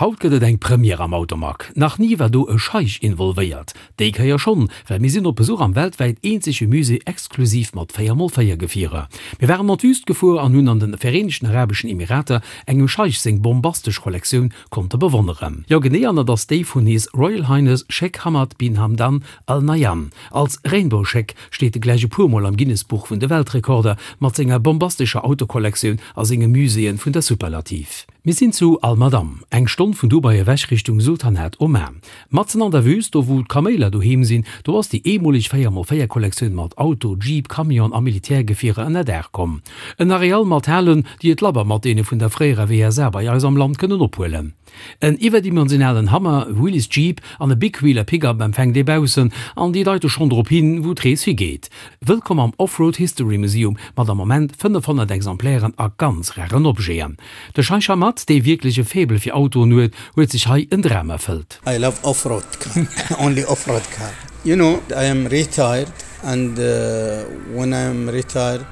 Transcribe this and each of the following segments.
Haut gëtt et eng Première am Automag. Nach ni war do e Scheich involvéiert. Déi Kéier schonn, well mir sinn op Besuch am weltwäit eenzege Musée exklusiv mat 4x4 Gefierer. Mir waren an d'Wüst gefuer an hunn an den Vereenegten Arabeschen Emirater engem Scheich seng bombastesch Kollektioun konnte bewonneren. Jo genee, an dat ass déi vun His Royal Highness Sheikh Hamad bin Hamdan Al Nahyan. Als Rainbow Sheik steet e gläich e puer Mol am Guinness-Buch vun de Weltrekorder mat senger bombastescher Autokollektioun a senge Muséeën vun der Superlativ. Mir sinn zu Al Madam, eng Stonn vun Dubai ewech Richtung Sultanat Oman. Matzen an der Wüst, do wou d'Kaméiler doheem sinn, do ass déi eemoleg 4 x 4 Kollektioun mat Auto, Jeep, Camion a Militärgefierer ënner Daach komm. En Areal mat Halen, déi et labber mat deene vun der fréierer WSA bei eis am Land kënnen ophuelen. En iwwerdimensionalen Hummer, Willys Jeep an e Big Wheeler Pickup empfänkt ee baussen an déi deite schonn drop hin, wou d'Rees higeet. Wëllkomm am Offroad History Museum mat am Moment 500 Exemplairen a ganz raren Objeten. De Scheich Hamad, dee wierklech e Faible fir Autoen huet, huet sech hei en Dram erfëllt. I love offroad car, only offroad car. You know, I am retired and when I am retired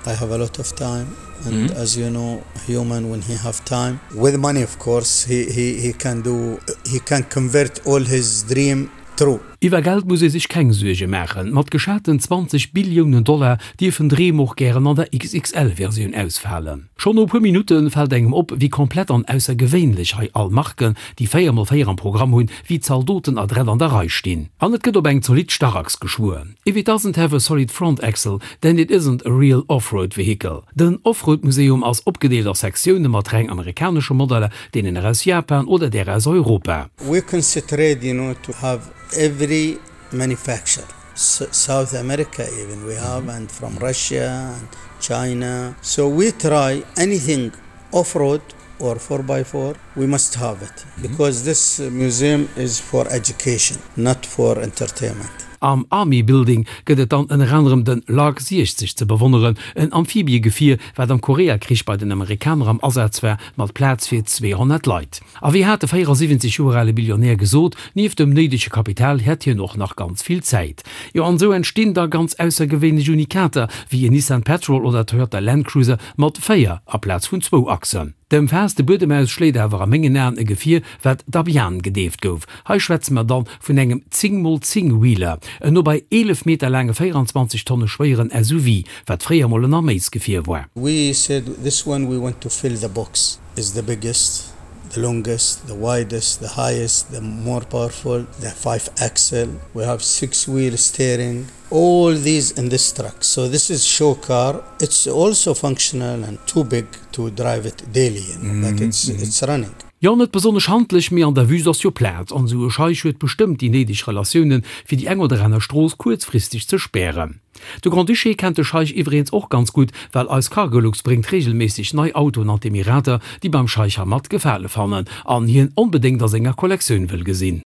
I have a lot of time and as you know human when he have time with money of course he he he can do he can convert all his dream true. Iwwer Geld muss ee sech keng Suerge maachen. Mat geschaten 20 Billiounen Dollar dierfen Dreem och gären an der XXL-Versioun ausfalen. Schonn no e puer Minutte fält engem op, wéi komplett an aussergewéinlech hei all Marken, déi 4 mol 4 am Programm hunn, wéi Zaldoten adrett an der Rei stinn. An et gëtt op eng zolidd Starrachs geschwuer. If it doesn't have a solid front axle, then it isn't a real off-road vehicle. Den Offroad-Museum ass opgedeelt a Sektioune mat reng amerikanesche Modeller, deenen aus Japan oder där aus Europa. We concentrate you know to have every manufacture, South America even we have and from Russia and China, so we try anything off-road or 4x4 we must have it because this museum is for education not for entertainment. Am Army Building gëtt et dann ënner anerem den Lark 60 ze bewonneren, en Amphibiegefier, wat am Koreakrich bei den Amerikaner am Asaz war, mat Plaz fir 200 Leit. A wéi hat de 74 Joer ale Billionär gesot, nieft dem néidege Kapital hätt hien och nach ganz vill Zäit. Jo, an esou entstinn da ganz aussergewéinlech Unikater, wéi en Nissan Patrol oder Toyota Land Cruiser mat 4 aplaz vun zwou Achsen. Dem Faass de Buedem aus schléit awer a mengen Aen e Gefier, wat Dhabian gedeeft gouf. Hei schwätze mer dann vun engem 10 mol 10 Wheeler, en no bei 11 Meter laange 24 Tonne schwéieren SUV, wat fréier mol en Arméisgefier war. We said this one we want to fill the box is the biggest, the longest, the widest, the highest, the more powerful, the 5 axle, we have 6 wheel steering, all these in this truck so this is show car it's also functional and too big to drive it daily you know but it's it's running. Jo, net besonnesch handlech, mee an der Wüst ass jo Plaz, an esou e Scheich huet bestëmmt déi néideg Relatiounen, fir déi eng oder aner Strooss kuerzfristeg ze spären. De Grand-Duché kennt de Scheich iwwereens och ganz gutt, well eis Cargolux bréngt reegelméisseg nei Autoen an d'Emirater, déi beim Scheich Hamad Gefale fannen an hien onbedéngt a senger Kollektioun wëll gesinn.